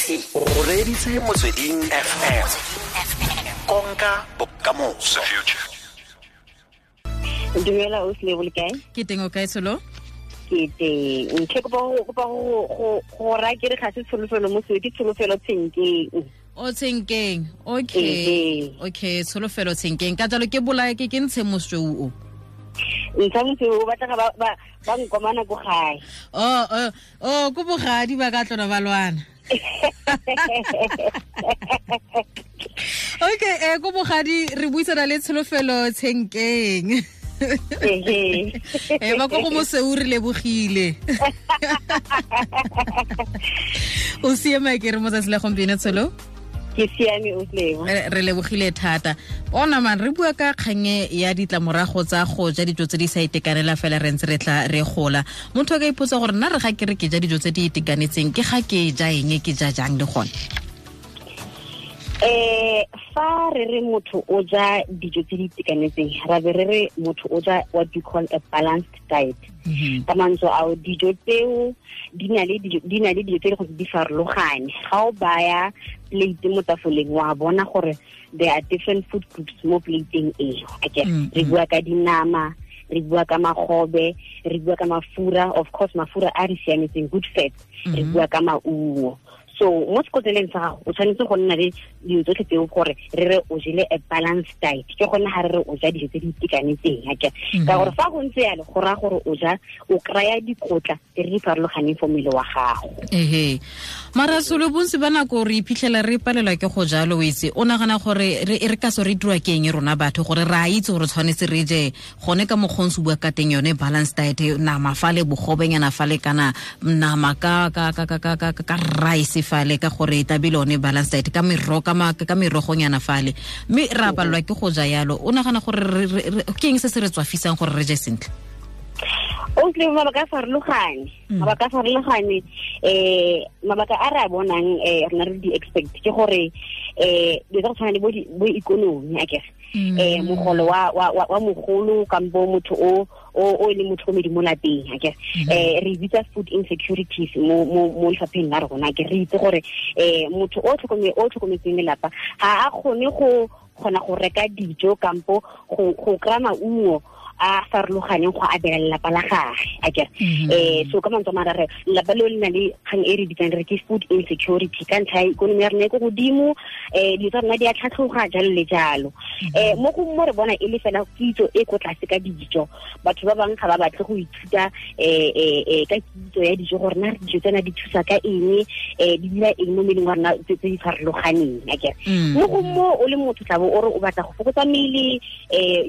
O reditse Motsweding FM. Konka bokamoso. Dumela o sile le kae? Ke teng, o kae, Tsholo? Ke teng. Ke kopa go raya ke re ga se Tsholofelo mo ke Tsholofelo Tshenkeng. O Tshenkeng, okay. Okay, Tsholofelo Tshenkeng. Ka jalo ke bolae ke ntshe mosweu o. Ntsha mosweu o batla ba nkomana ko gae. Oh, ko bogadi ba ka tlona ba lwana. Okay, ko bogadi re buisana le Tsholofelo Tshenkeng. Ba ko go mosweu re lebogile. O siame ke re mo tsatsi la gompieno, Tsholo? Ke siame, o Lebo. Re lebogile thata. Ona man re bua ka kganye ya ditlamorago tsa go ja dijo tse di sa itekanela fela re ntse re tla re gola. Motho a ka ipotsa gore nna re ga ke re ke ja dijo tse di itekanetseng ke ga ke ja eng, ke ja jang le gone? Fa re re motho o ja dijo tse di itekanetseng, ra be re re motho o ja what we call a balanced diet. Ka mantswe ao, dijo tseo di na le dijo tse di gore di farologane. Ga o baya plate mo tafoleng, wa bona gore there are different food groups mo plateng eo. Okay, re bua ka dinama, re bua ka magobe, re bua ka mafura, of course mafura a re siametseng, good fats, re bua ka maungo. So mo sekotleleng sa gago o tshwanetse go nna le dilo tsotlhe tseo gore re re o jele a balanced diet. Ke gone ga re re o ja dijo tse di itekanetseng, akere? Ka gore fa go ntse yalo go raya gore o ja, o kry-a dikotla tse di farologaneng for mmele wa gago. Ehe. Mara Tsholo, bontsi ba nako re iphitlhela re palelwa ke go jalo, o itse. O nagana gore re ka so re dirwa ke eng rona batho gore re a itse gore tshwanetse re je gone ka mokgwa o ntse o bua ka teng yone balanced diet, nama fale, bogobenyana fale, kana nama ka rice fale, ka gore tabile one balanced diet ka merogo, ka merogonyana fale, mme re a palelwa ke go ja yalo. O nagana gore ke eng se se re tswafisang gore re je sentle? O tle mabaka a farologane. Mabaka a farologane, mabaka a re a bonang, rena re di expect ke gore dilo tsa go tshwana le bo ikonomi, akere? Mogolo wa mogolo kampo motho o e leng motlhokomedi mo lapeng, akere? Re bitsa food insecurities mo lefapheng la rona, akere? Re itse gore motho o tlhokometseng lelapa ga a kgone go kgona go reka dijo kampo go kry-a maungo a farologaneng go abela lelapa la gage, akere? So ka mantswe a mangwe re lelapa leo le na le kgang e re bitsang re ke food insecurity ka ntlha ya ikonomi ya rona e ko godimo, dilo tsa rona di a tlhatlhoga, jalo le jalo. Mo go mo re bona e le fela kitso e ko tlase ka dijo. Batho ba bangwe ga ba batle go ithuta ka kitso ya dijo gore na dijo tsena di thusa ka eng, di dira eng mo mmeleng wa rona tse di farologaneng, akere? Mo go mo o le motho tla bo o re o batla go fokotsa mmele,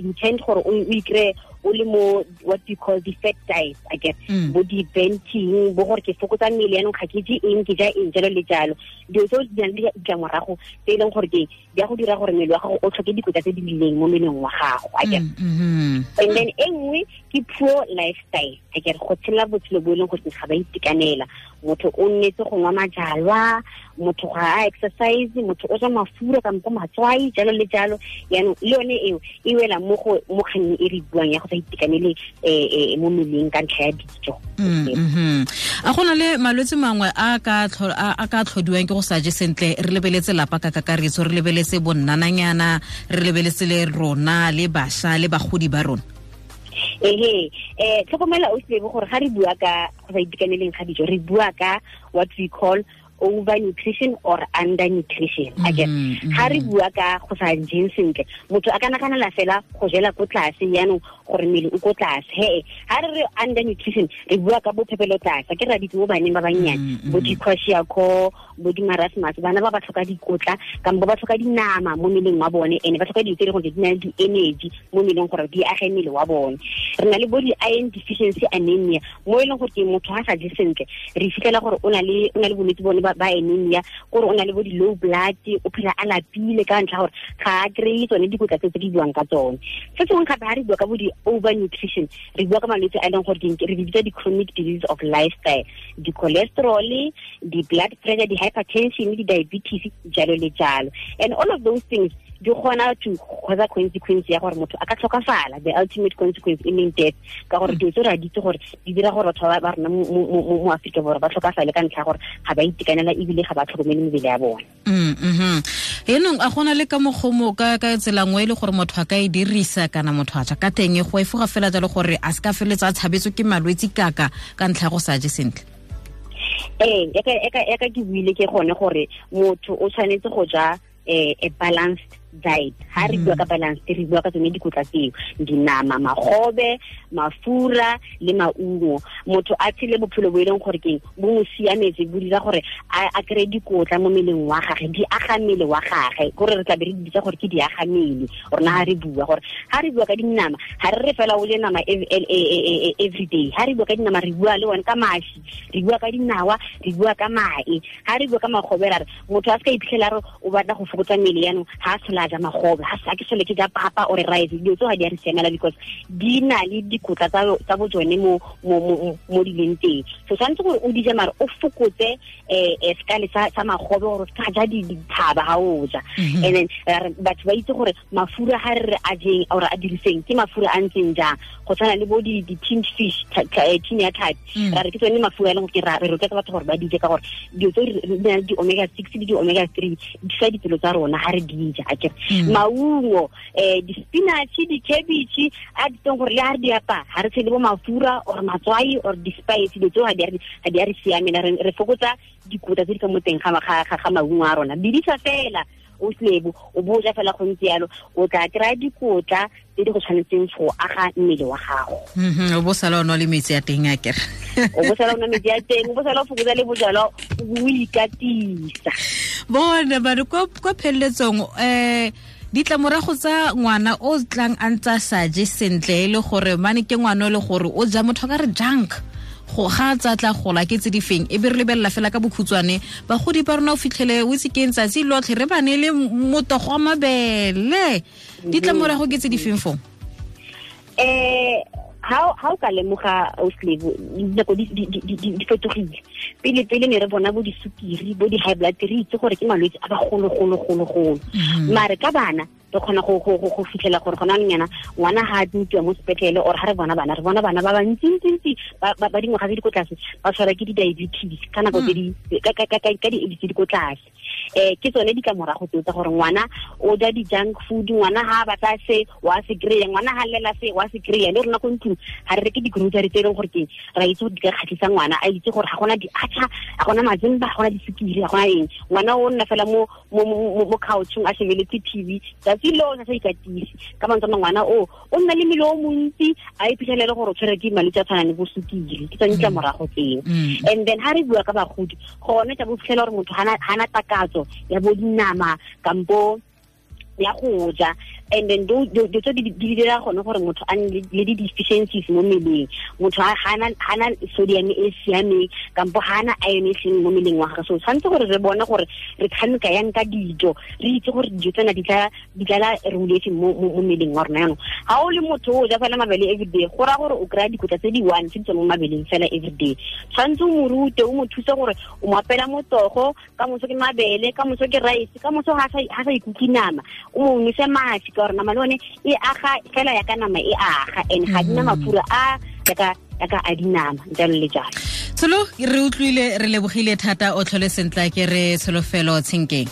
you tend gore o ikry o le mo what you call the fat diet, akere? Bo di-banting, bo gore ke fokotsa mmele yanong ga ke je eng, ke ja eng, jalo le jalo. Dilo tseo di na le ditlamorago tse e leng gore ke di a go dira gore mmele wa gago o tlhoke dikotla tse di rileng mo mmeleng wa gago, akere? And then e nngwe ke poor lifestyle, akere? Go tshela botshelo bo e leng gore ga ba itekanela. Motho o nnetse go nwa majalwa, motho ga a exercise, motho o ja mafura kampo matswai, jalo le jalo. Yaanong le yone eo e wela mo kgannyeng e re buang ya go sa itekanele mo mmeleng ka ntlha ya dijo. A go na le malwetse mangwe a ka tlhodiwang ke go sa je sentle? Re lebeletse lapa ka kakaretso, re lebeletse bonnananyana, re lebeletse le rona le bašwa le bagodi ba rona. Ehe, tlhokomela o sebe gore ga re bua ka go sa itekaneleng ga dijo, re bua ka what we call overnutrition or undernutrition. Akere ga re bua ka go sa jeng sentle, motho a ka naganela fela go jela ko tlase yaanong gore mmele o ko tlase. He, ga re re undernutrition re bua ka bophepelo tlase, ke ra ditse mo baneng ba bannyane, bo di-kwashiorkor, bo di-marasmus, bana ba ba tlhoka dikotla kampo ba tlhoka dinama mo mmeleng wa bone, ene ba tlhoka dilo tse e leng gore di na le di-energy mo mmeleng gore di age mmele wa bone. Re na le bo di-iron deficiency anemia mo e leng gore ke motho ga sa je sentle, re fitlhela gore o na le bolwetse bone ba anemia, gore o na le bo di-low blood, o phela a lapile ka ntlha gore ga a kry-e tsone dikotla tse di buang ka tsone. Se sengwe gape ga re bua ka bo di-overnutrition, re bua ka malwetse a e leng gore re bitsa di-chronic disease of lifestyle, di-cholesterol, di-blood pressure, di-hypertension, di-diabetes, jalo le jalo. And all of those things di kgona to cause consequence ya gore motho a ka tlhokafala, the ultimate consequence e leng death, ka gore dilo tse re a di itse gore di dira gore batho ba rona mo Aforika Borwa ba tlhokafale ka ntlha ya gore ga ba itekanela ebile ga ba tlhokomele mebele ya bone. Enong a gona le ka mokgomo ka tsela nngwe e le gore motho a ka e dirisa kana motho a ja ka teng go efoga fela jalo gore a se ka feletsa a tshabetswe ke malwetse kaka ka ntlha ya go sa je sentle? Ee, eka ke buile ke gone gore motho o tshwanetse go ja a balanced diet. Ha re bua ka balanced, re bua ka tsone dikotla tseo, dinama, magobe, mafura le maungo. Motho a tshele bophelo bo e leng gore keng bo mo siametse, bo dira gore a kry-e dikotla mo mmeleng wa gage, di aga mmele wa gage, kore re tla be re di bitsa gore ke di aga mmele. Rona ha re bua gore ha re bua ka dinama, ha re re fela o je nama every day. Ha re bua ka dinama, re bua le one ka mashi, re bua ka dinawa, re bua ka mae. Ha re bua ka magobe, ra re motho a se ka iphitlhela re o batla go fokotsa mmele yanong, ha a tlhola a ja magobe, ha sa ke sole ke ja papa or rice, dilo tseo ga di a re siamela because di na le dikotla tsa bo tsone mo di leng teng. So tshwanetse gore o di je mare o fokotse sekale sa magobe gore o se ka ja dithaba ha o ja. And then batho ba itse gore mafura ha re re a jeng or a diriseng ke mafura a ntseng jang, go tshwana le bo di tinned fish, tin ya tlhapi, ra re ke tsone mafura a leng gore re rotloetsa batho gore ba di je ka gore dilo tse di na le di-omega 6 le di-omega 3 di fa dipelo tsa rona ha re di ja, akere. Maungo, di-spinach, di-cabbage, a di teng gore le ha re di apaya ha re tshele bo mafura or matswai or di-spice, dilo tseo ga di a re siamela. Re fokotsa dikotla tse di ka mo teng ga maungo a rona. Bidisa fela o slebo, o bo ja fela go ntse yalo, o tla kry-a dikotla tse di go tshwanetseng go aga mmele wa gago. O bo sala o nwa le metsi a teng akere. O bo sala o nwa metsi a teng, o bo sala o fokotsa le bojalwa, o ikatisa. Bona ba re kwa pheleletsong, ditlamorago tsa ngwana o tlang a ntse a sa je sentle e le gore mane ke ngwana o le gore o ja motho ka re junk, go ga tsa tla gola ke tse di feng, e be re lebelela fela ka bokhutshwane bagodi ba rona o fitlhele o itse ke tsatsi lotlhe re ba ne le motogo wa mabele, ditlamorago ke tse di feng fong? Ha o ka lemoga Auslebo, dinako di fetogile. Pele pele ne re bona bo disukiri, bo di-high blood, re itse gore ke malwetse a bagolo-golo-golo-golo. Mare ka bana re kgona go fitlhela gore gona nyana ngwana ha a admitiwa mo sepetlele or ha re bona bana, re bona bana ba bantsi-ntsi ba dingwaga tse di ko tlase ba tshwarwa ke di-diabetes ka nako tse di ka di-age tse di ko tlase. Ke tsone ditlamorago tseo tsa gore ngwana o ja di-junk food, ngwana ha a batla se wa se kry-a, ngwana ha lela se wa se kry-a. Le rona ko ntlong ha re reke di-grocery tse e leng gore ke ra itse gore di ka kgatlhisa ngwana, a itse gore ga gona di-atchar, ga gona mazimba, ga gona disukiri, ga gona eng. Ngwana o nna fela mo couchong a shebeletse TV tsatsi lotlhe a sa ikatise. Ka mantswe a mangwe, ngwana o nna le mmele o montsi, a iphitlhelele gore o tshwerwe ke malwetse a tshwanang le bo sukiri. Ke tsone ditlamorago tseo. And then ha re bua ka bagodi, gone tla bo fitlhela gore motho hana takatso ya bo dinama kampo ya go ja, and then do tse di dira gone gore motho a nne le di-deficiencies mo mmeleng. Motho hana sodium e siameng kampo hana iron e seng mo mmeleng wa gagwe. So tshwanetse gore re bone gore re tshameka yang ka dijo, re itse gore dijo tsena di tlala regulation mo mmeleng wa rona. Yanong ha o le motho o ja fela mabele everyday, go raya gore o kry-a dikotla tse di one tse di tswang mo mabeleng fela everyday. Tshwanetse o mo rute, o mo thuse gore o mo apela motogo, ka moso ke mabele, ka moso ke rice, ka moso ha sa ikutlwe nama, o mo nwese mashi, ka gore nama le one e aga fela ya ka nama e aga, and ga dina mafura a yaka a dinama, jalo le jalo. Tsholo, re utlwile, re lebogile thata, o tlhole sentle, ke re Tsholofelo Tshenkeng.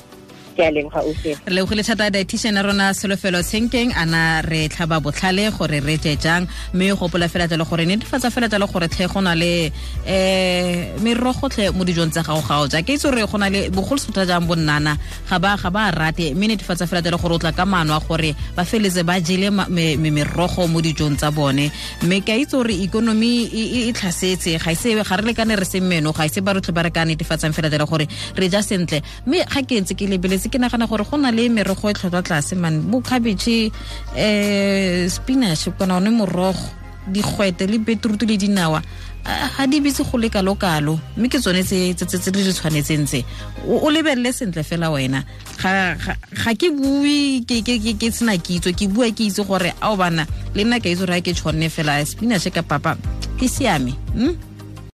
Ke a leboga, Ausi. Re lebogile thata dietitian ya rona Tsholofelo Tshenkeng, ana re tlhaba botlhale gore re je jang, mme gopola fela jalo gore netefatsa fela jalo gore tlhe go na le merogo tlhe mo dijong tsa gago ga o ja. Ke itse gore go na le bogolosota jang bonnana ga ba rate, mme netefatsa fela jalo gore o tla ka maano a gore ba feletse ba jele merogo mo dijong tsa bone. Mme ke a itse gore ikonomi e tlhasetse, ga ise ga re lekane re se meno, ga ise ba rotlhe ba re ka netefatsang fela jalo gore re ja sentle. Mme ga ke ntse ke lebeletse, ke nagana gore go na le merogo e tlhotlhwa tlase man, bo cabbage, spinach, kana one morogo, digwete le beetroot le dinawa, ga di bitse go le kalo-kalo, mme ke tsone tse di re tshwanetseng tse. O lebelele sentle fela wena. Ga ke bue ke sena kitso, ke bua ke itse gore ao bana le nna ke itse gore ga ke tshwanne fela spinach ka papa ke siame.